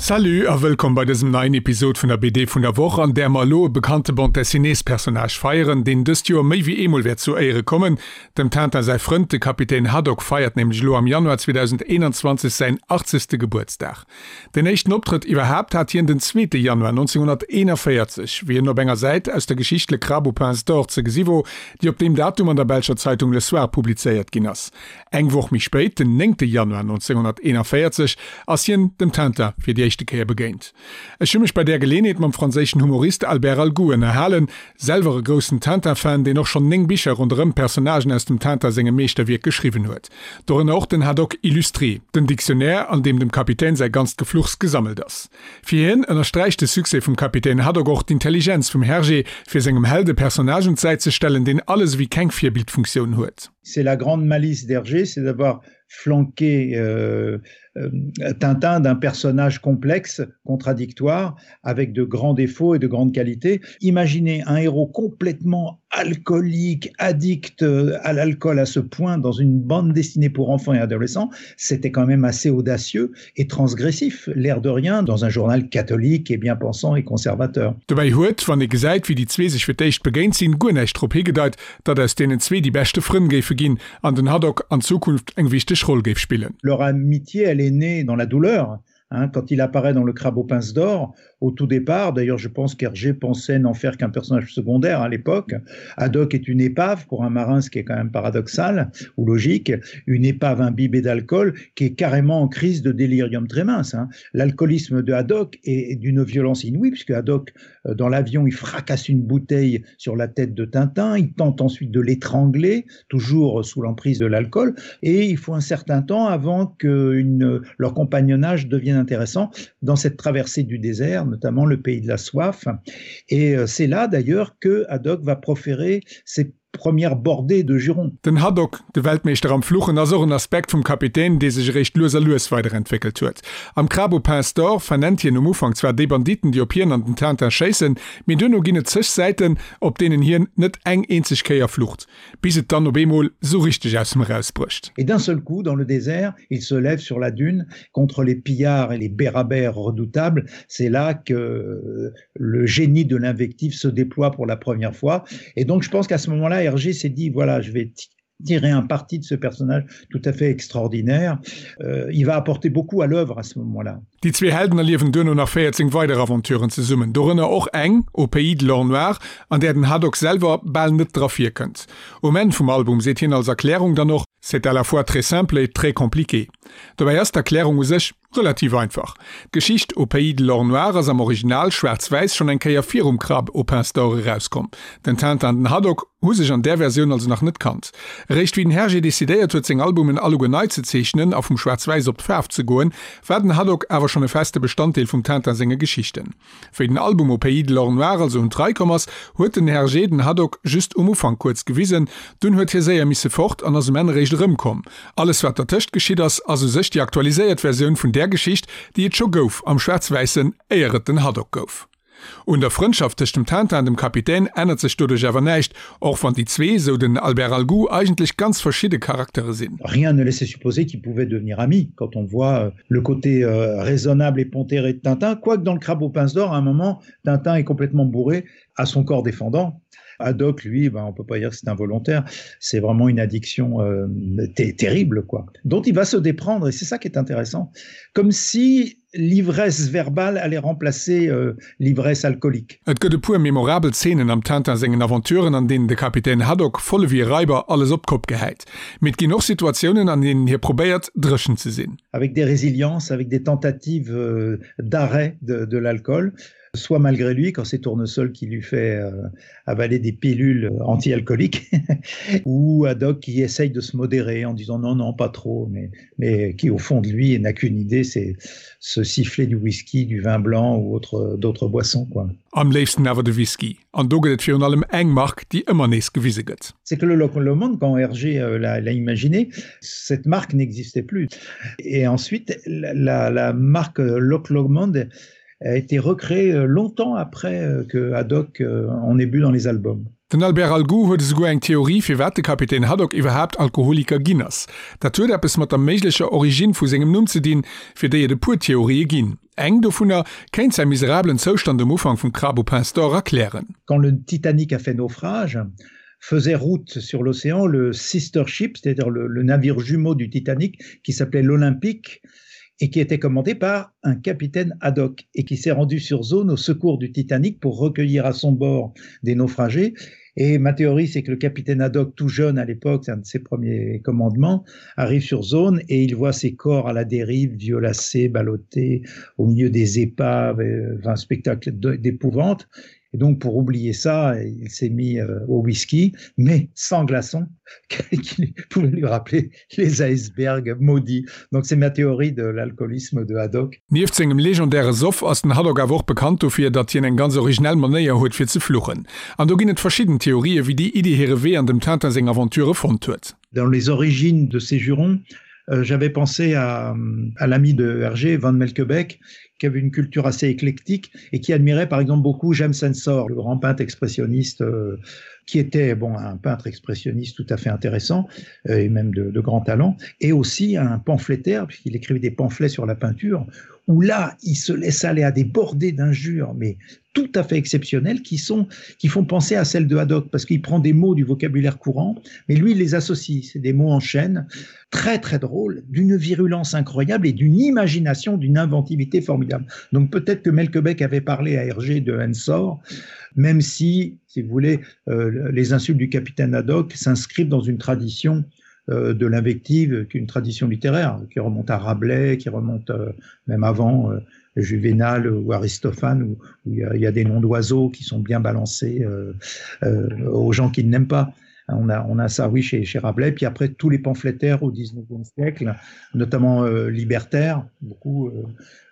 Salut a wëllkomm bei dësem neien Episod vun der BD vun der Woch, an där mer elo e bekannte Bande Dessinées-Personnage feieren, deen dëst Joer méi wéi eemol wäert zu Éiere kommen. Dem Tintin säi Frënd, de Kapitän Haddock, feiert nämlech elo am Januar 2021 säin 80. Gebuertsdag. Den éischten Optrëtt iwwerhaapt hat hien den zweete Januar 1941, wéi en op enger Säit aus der Geschicht Le Crabe aux pinces d'or ze gesi wor, déi op deem Datum an der belscher Zeitung Le Soir publizéiert ginn ass. Eng Woch méi spéit, den néngte Januar 1941, ass hien dem Tintin fir déi éischte Kéier begéint. Ech hu mech bei där Geleenheet mam franséischen Humorist Albert Algoux ënnerhalen, selwer e groussen Tintin-Fan, deen och schonn 9 Bicher ronderëm d'Personnagen aus dem Tintin sengem Meeschterwierk geschriwwen huet. Dorënner och den Haddock Illustré, den Dictionnaire, an deem dem Kapitän säi ganzt Gefluchs gesammelt ass. Fir hien ënnersträicht de Succès vum Kapitän Haddock och d'Intelligenz vum Hergé, fir sengem Held e Personnage un d'Säit ze stellen, deen alles ewéi keng Virbildfunktioun huet. C'est la grande malice d'Hergé, c'est d'avoir flanqué euh, euh, Tintin d'un personnage complexe, contradictoire, avec de grands défauts et de grandes qualités. Imaginez un héros complètement alcoolique, addict euh, à l'alcool à ce point dans une bande destinée pour enfants et adolescents, c'était quand même assez audacieux et transgressif, l'air de rien, dans un journal catholique et bien pensant et conservateur. Dobäi huet, wann ee gesäit, wéi déi zwee sech fir d'éischt begéint sinn, guer näischt drop higedeit, datt aus deenen zwee déi beschte Frënn géife ginn an den Haddock an Zukunft eng wichteg Roll géif spillen. Leur amitié, elle est née dans la douleur, hein, quand il apparaît dans le Crabe aux pinces d'or, au tout départ, d'ailleurs je pense qu'Hergé pensait n'en faire qu'un personnage secondaire à l'époque. Haddock est une épave pour un marin, ce qui est quand même paradoxal ou logique, une épave imbibée d'alcool qui est carrément en crise de délirium très mince. Hein. L'alcoolisme de Haddock est d'une violence inouïe, puisque Haddock, euh, dans l'avion, il fracasse une bouteille sur la tête de Tintin, il tente ensuite de l'étrangler, toujours sous l'emprise de l'alcool, et il faut un certain temps avant que une, leur compagnonnage devienne intéressant dans cette traversée du désert, notamment le pays de la soif. Et euh, c'est là d'ailleurs que Haddock va proférer ses premières bordées de jurons. Den Haddock, de Weltmeeschter am Fluchen, ass och en Aspekt vum Kapitän, dee sech eréischt lues a lues weiderentwéckelt huet. Am Crabe aux pinces d'or vernennt hien um Ufank zwar déi Banditen, déi op hien an den Tintin schéissen, mee duerno ginn et zeg Säiten, op deenen hien net eng eenzeg Kéier flucht, bis et dann op eemol sou richteg aus him erausbrécht. Et d'un seul coup, dans le désert, il se lève sur la dune contre les pillards et les bérabères redoutables. C'est là que le génie de l'invective se déploie pour la première fois. Et donc je pense qu'à ce moment-là, Hergé s'est dit voilà, je vais tirer un parti de ce personnage tout à fait extraordinaire. Euh, il va apporter beaucoup à l'œuvre à ce moment-là. Déi zwee Helden erliewen duerno nach 14 weider Aventuren zesummen, dorënner och eng Au pays de l'or noir, an där den Haddock selwer bal net dra virkënnt. Um Enn vum Album seet hien als Erklärung dann och, C'est à la fois très simple et très compliqué. Dobäi ass d'Erklärung u sech Relativ einfach. D'Geschicht Au pays de l'or noir ass am Original, schwaarz-wäiss, schonn eng Kéier virum Crabe aux pinces d'or erauskomm. Den Tintin an den Haddock hu sech an där Versioun also nach net kannt. Eréischt wéi den Hergé decidéiert huet seng Albumen alleguer nei ze zeechnen a vum Schwaarz-Wäiss op d'Faarf ze goen, war den Haddock awer schonn e feste Bestanddeel vum Tintin senge Geschichten. Wéi den Album Au pays de l'or noir also un d'Rei komm ass, huet den Hergé den Haddock just um Ufank kuerz gewisen, dunn huet hie séier misse fort an ass um Enn eréischt erëmkomm. Alles wat dertëscht geschitt ass, ass u sech déi aktualiséiert Versioun vun där Geschicht, déi et scho gouf am Schwaarz-Wäissen, éier et den Haddock gouf. Un der Frëndschaft tëscht dem Tintin an dem Kapitän ännert sech doduerch awer näischt, och wann déi zwee, sou den Albert Algoux, eigentlech ganz verschidde Charaktere sinn. Rien ne laissait supposer qu'ils pouvaient devenir amis quand on voit le côté raisonnable et pondéré de Tintin, quoique dans le Crabe aux pinces d'or, à un moment, Tintin est complètement bourré à son corps défendant. Haddock, lui, ben, on peut pas dire que c'est involontaire, c'est vraiment une addiction euh, terrible, quoi, dont il va se déprendre, et c'est ça qui est intéressant, comme si l'ivresse verbale allait remplacer euh, l'ivresse alcoolique. Et gëtt e puer memorabel Zeenen am Tintin sengen Aventuren, an deenen de Kapitän Haddock voll ewéi e Raiber alles op d'Kopp gehäit. Mee et ginn och Situatiounen, an deenen hie probéiert, dréchen ze sinn. Avec des résiliences, avec des tentatives euh, d'arrêt de, de l'alcool, soit malgré lui quand c'est Tournesol qui lui fait euh, avaler des pilules anti-alcooliques ou Haddock qui essaye de se modérer en disant non non pas trop mais, mais qui au fond de lui n'a qu'une idée c'est se siffler du whisky, du vin blanc ou autre d'autres boissons quoi. Am léifsten awer de Whisky, an do gëtt et virun allem eng Mark, déi ëmmer nees gewise gëtt. C'est que le Loch Lomond, quand Hergé euh, l'a imaginé, cette marque n'existait plus. Et ensuite, la, la, la marque Loch Lomond a été recréée euh, longtemps après euh, que Haddock en ait bu dans les albums. Den Albert Algoux huet esouguer eng Theorie, firwat de Kapitän Haddock iwwerhaapt Alkoholiker ginn ass. Dat huet eppes mat der méiglecher Originn vu sengem Numm ze dinn, fir déi et e puer Theorië ginn. Eng dovunner kéint säi miserabelen Zoustand um Ufank vum Crabe aux pinces d'or erklären. Quand le Titanic a fait naufrage, faisait route sur l'océan le sister ship, c'est-à-dire le, le navire jumeau du Titanic qui s'appelait l'Olympique et qui était commandé par un capitaine Haddock et qui s'est rendu sur zone au secours du Titanic pour recueillir à son bord des naufragés. Et ma théorie, c'est que le capitaine Haddock, tout jeune à l'époque, c'est un de ses premiers commandements, arrive sur zone et il voit ses corps à la dérive, violacés, ballottés, au milieu des épaves, euh, un spectacle d'épouvante. Et donc pour oublier ça, il s'est mis euh, au whisky, mais sans glaçon, qui pouvait lui rappeler les icebergs maudits. Donc c'est ma théorie de l'alcoolisme de Haddock. Nieft sengem legendäre Soff ass den Haddock awer och bekannt dofir, datt hien eng ganz originell Manéier huet fir ze fluchen. An do ginn et verschidden Theorië wéi déi Iddi hire Wee an dem Tintin seng Aventurë fonnt huet. Dans les origines de ces jurons, euh, j'avais pensé à, à l'ami de Hergé, Van Melkebeck, qui avait une culture assez éclectique et qui admirait par exemple beaucoup James Ensor, le grand peintre expressionniste euh, qui était bon un peintre expressionniste tout à fait intéressant euh, et même de, de grand talent et aussi un pamphlétaire puisqu'il écrivait des pamphlets sur la peinture où là il se laisse aller à des bordées d'injures mais tout à fait exceptionnelles qui sont qui font penser à celle de Haddock parce qu'il prend des mots du vocabulaire courant mais lui il les associe c'est des mots en chaîne très très drôles d'une virulence incroyable et d'une imagination d'une inventivité formidable donc peut-être que Melkebeck avait parlé à Hergé de Ensor même si si vous voulez euh, les insultes du capitaine Haddock s'inscrivent dans une tradition euh, de l'invective qu'une tradition littéraire qui remonte à Rabelais qui remonte euh, même avant euh, Juvénal ou Aristophane où, où il, y a, il y a des noms d'oiseaux qui sont bien balancés euh, euh, aux gens qui n'aiment pas. On a, on a ça oui chez, chez Rabelais, puis après tous les pamphlétaires au 19e siècle, notamment euh, libertaires, beaucoup euh,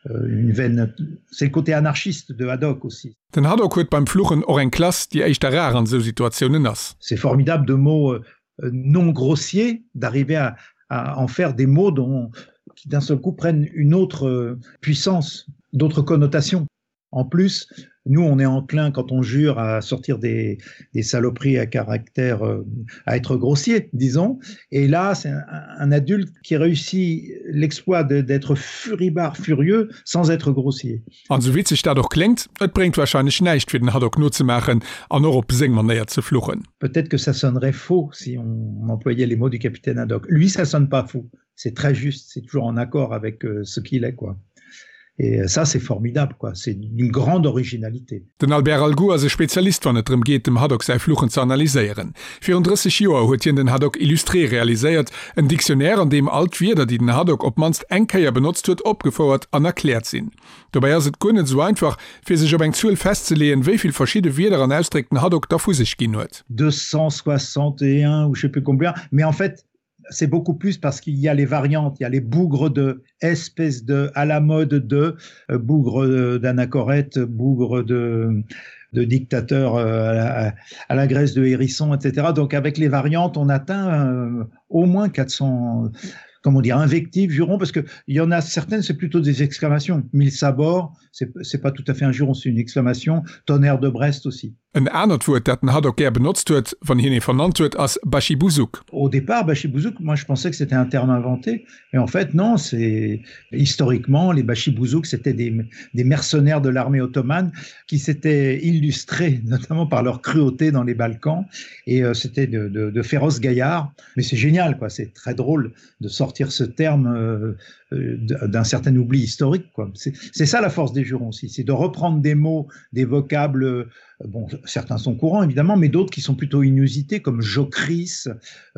euh une veine c'est le côté anarchiste de Haddock aussi. Den Haddock huet beim Fluchen och eng Klass, déi éischter rar an esou Situatiounen ass. C'est formidable de mots euh, non grossiers d'arriver à, à en faire des mots dont, qui d'un seul coup prennent une autre euh, puissance, d'autres connotations. En plus, nous on est enclin quand on jure à sortir des, des saloperies à caractère euh, à être grossier, disons. Et là, c'est un, un adulte qui réussit l'exploit d'être furibard furieux sans être grossier. An sou witzeg dat och kléngt, et bréngt warscheinlech näischt fir den Haddock nozemaachen an och op seng Manéier ze fluchen. Peut-être que ça sonnerait faux si on employait les mots du capitaine Haddock. Lui, ça sonne pas faux. C'est très juste, c'est toujours en accord avec euh, ce qu'il est quoi. Et euh, ça c'est formidable quoi, c'est une grande originalité. Den Albert Algoux ass e Spezialist wann et drëm geet dem Haddock säi Fluchen ze analyséieren. Virun 30 Joer huet hien den Haddock Illustré realiséiert, en Dictionnaire an deem all d'Wierder déi den Haddock op d'mannst eng Kéier benotzt huet opgefouert an erkläert sinn. Dobäi ass et guer net esou einfach fir sech op eng Zuel festzeleeën wéi vill verschidde Wierder an Ausdréck den Haddock da vu sech ginn huet. 261 ou je sais plus combien, mais en fait c'est beaucoup plus parce qu'il y a les variantes, il y a les bougres de espèce de à la mode de euh, bougre d'anachorète, bougre de de dictateur euh, à la, à la Grèce de hérisson, etc. Donc avec les variantes, on atteint euh, au moins 400 comment dire invectives jurons parce que il y en a certaines c'est plutôt des exclamations mille sabords c'est pas tout à fait un juron c'est une exclamation tonnerre de Brest aussi En anert Wuert, dat den Haddock gär benotzt huet, wann hien ee vernannt huet, ass Baschibousouk. Au départ, Baschibousouk, moi je pensais que c'était un terme inventé, mais en fait non, c'est historiquement les Baschibouzouk, c'était des, des mercenaires de l'armée ottomane qui s'étaient illustrés notamment par leur cruauté dans les Balkans et euh, c'était de, de, de féroces gaillards. Mais c'est génial, quoi, c'est très drôle de sortir ce terme euh, euh, d'un certain oubli historique quoi. C'est ça la force des jurons aussi, c'est de reprendre des mots, des vocables, euh, bon certains sont courants évidemment mais d'autres qui sont plutôt inusités comme Jocris,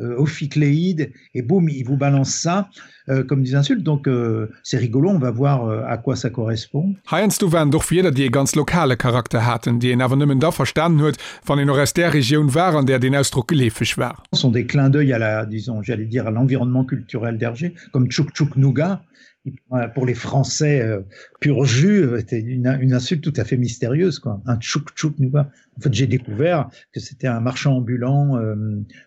euh, Ophicléide et boum il vous balance ça euh, comme des insultes donc euh, c'est rigolo on va voir euh, à quoi ça correspond. Heiansdo waren et och Wierder déi e ganz lokale Charakter haten, déi een awer nëmmen da verstanen huet, wann een och aus där Regioun war, an där deen Ausdrock geleefeg war. Sont des clins d'œil à la disons j'allais dire à l'environnement culturel d'Hergé comme Tchouk Tchouk Nougat pour les Français euh, pur jus était une, une insulte tout à fait mystérieuse quoi un Tchouk Tchouk Nougat en fait j'ai découvert que c'était un marchand ambulant euh,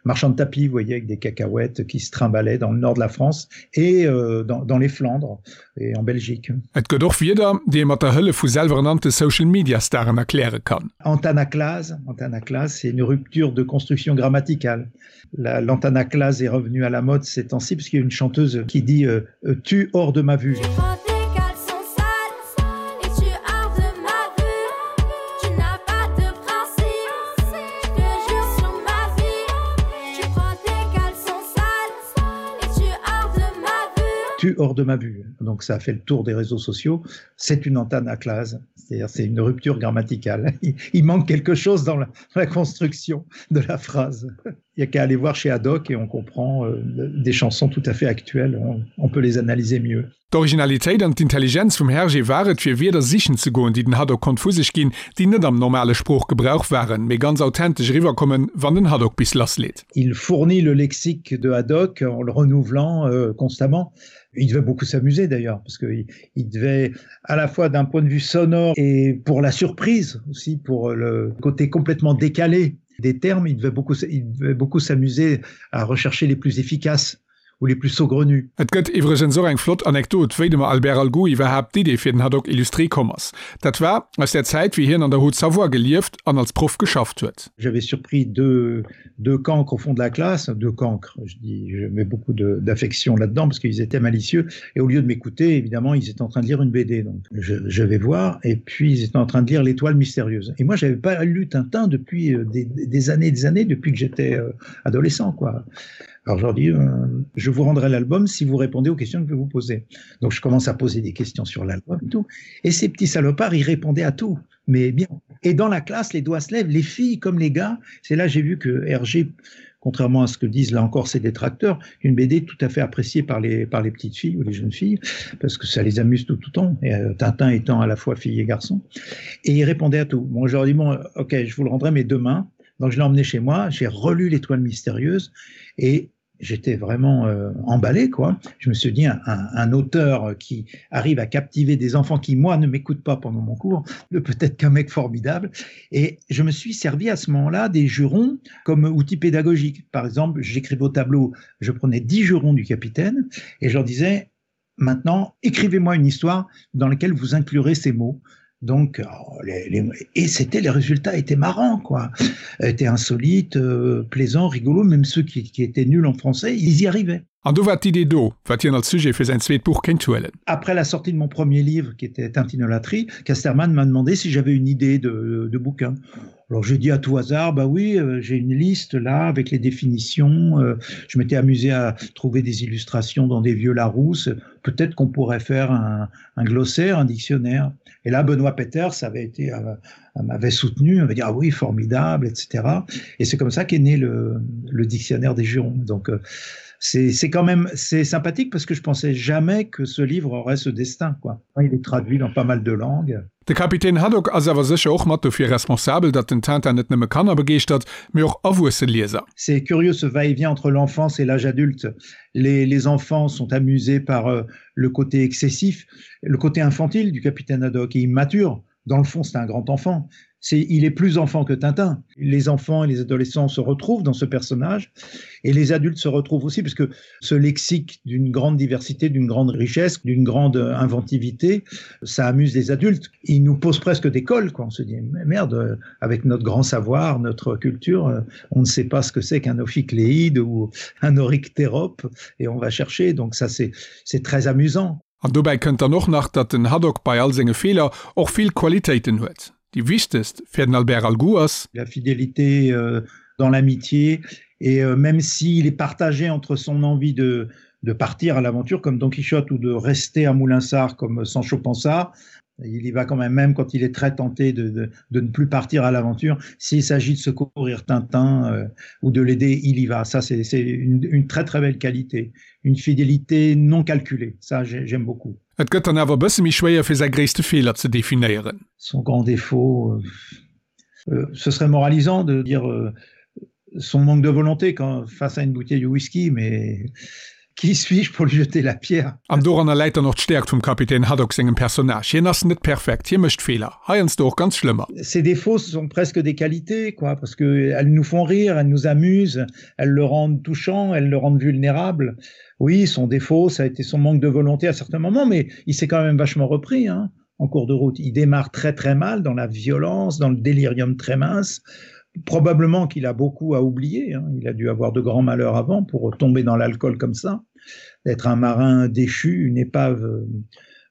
marchand de tapis vous voyez avec des cacahuètes qui se trimballait dans le nord de la France et euh, dans, dans les Flandres et en Belgique. Et gëtt och Wierder, déi ee mat der Hëllef vu selwerernannte Social-Media-Staren erkläre kann. Antanaclase, antanaclase, c'est une rupture de construction grammaticale. L'antanaclase est revenue à la mode ces temps-ci puisqu'il y a une chanteuse qui dit euh, euh tu hors de ma vue. Tu hors de ma vue. Donc ça a fait le tour des réseaux sociaux. C'est une antanaclase, c'est-à-dire c'est une rupture grammaticale. Il manque quelque chose dans la, dans la construction de la phrase. Il n'y a qu'à aller voir chez Haddock et on comprend euh, des chansons tout à fait actuelles, on, on peut les analyser mieux. D'Originalitéit an d'Intelligenz vum Hergé war et, fir Wierder sichen ze goen, déi den Haddock konnt vu sech ginn, déi net am normale Sproochgebrauch waren, mee ganz authentesch eriwwerkommen, wann den Haddock bis lassleet. Il fournit le lexique de Haddock en le renouvelant euh, constamment. Il devait beaucoup s'amuser d'ailleurs, parce qu'il il devait à la fois d'un point de vue sonore et pour la surprise aussi, pour le côté complètement décalé des termes, il devait beaucoup, il devait beaucoup s'amuser à rechercher les plus efficaces ou les plus saugrenus. Et gëtt iwwregens och eng flott Anekdot, wéi dem Albert Algoux iwwerhaapt d'Idee fir den Haddock illustré komm ass. Dat war aus der Zäit, wéi hien an der Haute-Savoie gelieft an als Proff geschafft huet. J'avais surpris deux, deux cancres au fond de la classe, deux cancres, je dis, je mets beaucoup d'affection là-dedans parce qu'ils étaient malicieux et au lieu de m'écouter, évidemment, ils étaient en train de lire une BD. Donc je, je vais voir et puis ils étaient en train de lire L'étoile mystérieuse. Et moi, j'avais pas lu Tintin depuis euh, des, des années et des années, depuis que j'étais euh, adolescent, quoi. Alors je leur dis euh, je vous rendrai l'album si vous répondez aux questions que je vais vous poser. Donc je commence à poser des questions sur l'album et tout. Et ces petits salopards, ils répondaient à tout, mais bien. Et dans la classe, les doigts se lèvent, les filles comme les gars. C'est là j'ai vu que RG, contrairement à ce que disent là encore ses détracteurs, une BD tout à fait appréciée par les, par les petites filles ou les jeunes filles, parce que ça les amuse tout tout temps, et euh, Tintin étant à la fois fille et garçon. Et ils répondaient à tout. Bon, je leur dis bon, ok, je vous le rendrai, mais demain. Donc je l'ai emmené chez moi, j'ai relu l'étoile mystérieuse et j'étais vraiment euh, emballé quoi. Je me suis dit un, un, un auteur qui arrive à captiver des enfants qui moi ne m'écoutent pas pendant mon cours, peut-être qu'un mec formidable. Et je me suis servi à ce moment-là des jurons comme outil pédagogique. Par exemple, j'écrivais au tableau, je prenais dix jurons du capitaine et je leur disais maintenant écrivez-moi une histoire dans laquelle vous inclurez ces mots. Donc oh, les, les, et c'était les résultats étaient marrants quoi, étaient insolites, euh, plaisants, rigolos, même ceux qui, qui étaient nuls en français, ils y arrivaient. An do war d'Idee do, wat hien als Sujet fir säin zweet Buch kéint huelen. Après la sortie de mon premier livre qui était Tintinolatrie, Casterman m'a demandé si j'avais une idée de, de bouquin. Alors j'ai dit à tout hasard, bah oui, euh, j'ai une liste là avec les définitions. Euh, je m'étais amusé à trouver des illustrations dans des vieux Larousse. Peut-être qu'on pourrait faire un, un glossaire, un dictionnaire. Et là, Benoît Peters avait été, euh, m'avait soutenu, avait dit ah oui, formidable, etc. Et c'est comme ça qu'est né le, le dictionnaire des jurons. Donc euh, c'est quand même c'est sympathique parce que je pensais jamais que ce livre aurait ce destin quoi. Il est traduit dans pas mal de langues. De Kapitän Haddock ass awer sécher och mat dofir responsabel, datt den Tintin net nëmme Kanner begeeschtert, mee och erwuesse Lieser. C'est curieux ce va-et-vient entre l'enfance et l'âge adulte. Les, les enfants sont amusés par euh, le côté excessif, le côté infantile du capitaine Haddock et immature. Dans le fond, c'est un grand enfant c'est il est plus enfant que Tintin. Les enfants et les adolescents se retrouvent dans ce personnage et les adultes se retrouvent aussi puisque ce lexique d'une grande diversité, d'une grande richesse, d'une grande inventivité, ça amuse les adultes. Il nous pose presque des cols quoi. On se dit mais merde, avec notre grand savoir, notre culture, on ne sait pas ce que c'est qu'un ophicléide ou un oryctérope et on va chercher donc ça c'est c'est très amusant. An dobäi kënnt dann och nach, datt den Haddock bei all senge Feeler och vill Qualitéiten huet. Déi wichtegst fir den Albert Algoux ass. La fidélité euh, dans l'amitié et euh, même s'il est partagé entre son envie de, de partir à l'aventure comme Don Quichotte ou de rester à Moulinsart comme Sancho Panza, il y va quand même même quand il est très tenté de, de, de ne plus partir à l'aventure. S'il s'agit de secourir Tintin euh, ou de l'aider, il y va. Ça c'est une, une très très belle qualité, une fidélité non calculée. Ça j'aime beaucoup. Et gëtt dann awer e bësse méi schwéier fir säi gréisste Feeler ze definéieren. Son grand défaut, euh, euh, ce serait moralisant de dire euh, son manque de volonté quand face à une bouteille de whisky, mais qui suis-je pour lui jeter la pierre? An doranner läit dann och d'Stäerkt vum Kapitän Haddock sengem Personnage. Hien ass net perfekt, hie mécht Feeler, heiansdo och ganz schlëmmer. Ses défauts sont presque des qualités, quoi, parce que elles nous font rire, elles nous amusent, elles le rendent touchant, elles le rendent vulnérable. Oui, son défaut, ça a été son manque de volonté à certains moments, mais il s'est quand même vachement repris hein, en cours de route. Il démarre très très mal dans la violence, dans le délirium très mince. Probablement qu'il a beaucoup à oublier. Hein. Il a dû avoir de grands malheurs avant pour tomber dans l'alcool comme ça, d'être un marin déchu, une épave euh,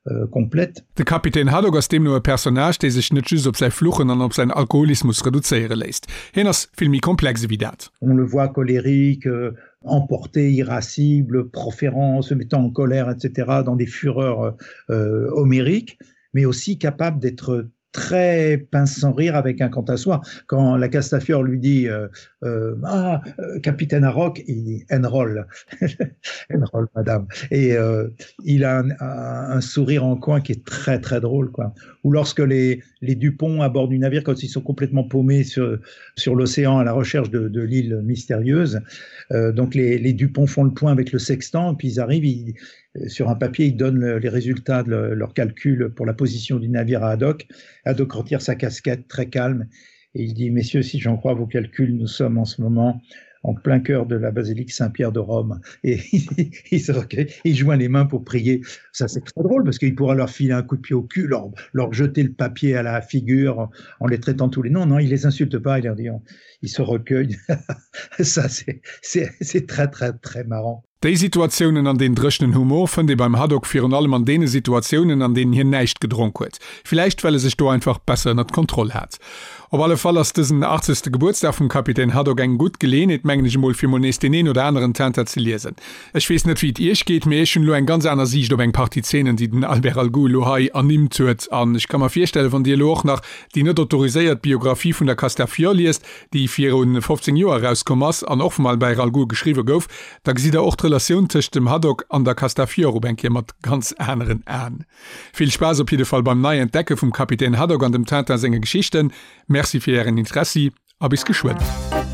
euh, komplett. De Kapitän Haddock ass deemno e Personnage, dee sech net just op säi Fluchen an op säin Alkoholismus reduzéiere léisst. Hien ass vill méi komplex ewéi dat. On le voit colérique, euh, Emporté, irascible, proférant, se mettant en colère, etc., dans des fureurs euh, homériques, mais aussi capable d'être très pince sans rire avec un quant à soi. Quand la Castafiore lui dit euh, euh, ah, euh, capitaine Harrock, il dit enroll, enroll madame. Et euh, il a un, un, un sourire en coin qui est très très drôle quoi. Ou lorsque les, les Dupont à bord du navire, quand ils sont complètement paumés sur, sur l'océan à la recherche de, de l'île mystérieuse, euh, donc les, les Dupont font le point avec le sextant, puis ils arrivent, ils, Euh, sur un papier, ils donnent le, les résultats de le, leur calcul pour la position du navire à Haddock. Haddock retire sa casquette très calme et il dit messieurs, si j'en crois vos calculs, nous sommes en ce moment en plein cœur de la basilique Saint-Pierre de Rome et il, se recueille, il joint les mains pour prier. Ça c'est très drôle parce qu'il pourra leur filer un coup de pied au cul, leur, leur jeter le papier à la figure en les traitant tous les noms. Non, il les insulte pas, il leur dit on, il se recueille. Ça c'est très très très marrant. Déi Situatiounen an deen dréchenen Humor fënnt ee beim Haddock virun allem an deene Situatiounen, an deenen hien näischt gedronk huet. Villäicht well e sech do einfach besser ënnert Kontroll hat. Op alle Fall ass dësen achtzegste Gebuertsdag vum Kapitän Haddock eng gutt Geleeënheet, mengen ech emol, fir mol nees deen een oder aneren Tintin ze liesen. Ech weess net wéi et iech geet, mee ech hunn elo eng ganz aner Siicht op eng Partie Zeenen, déi den Albert Algoux elo hei ernimmt huet. An ech ka mer virstellen, wann dir elo och nach déi net autoriséiert Biographie vun der Castafiore liest, déi viru 15 Joer erauskomm ass an och vum Albert Algoux geschriwwe gouf, da gesitt der och d'Relatioun tëscht dem Haddock an der Castafiore op eng Kéier mat ganz aneren Aen. Vill Spaass op jidde Fall beim Nei-Entdecke vum Kapitän Haddock an dem Tintin senge Geschichten. Merci fir ären Interessi a bis geschwënn.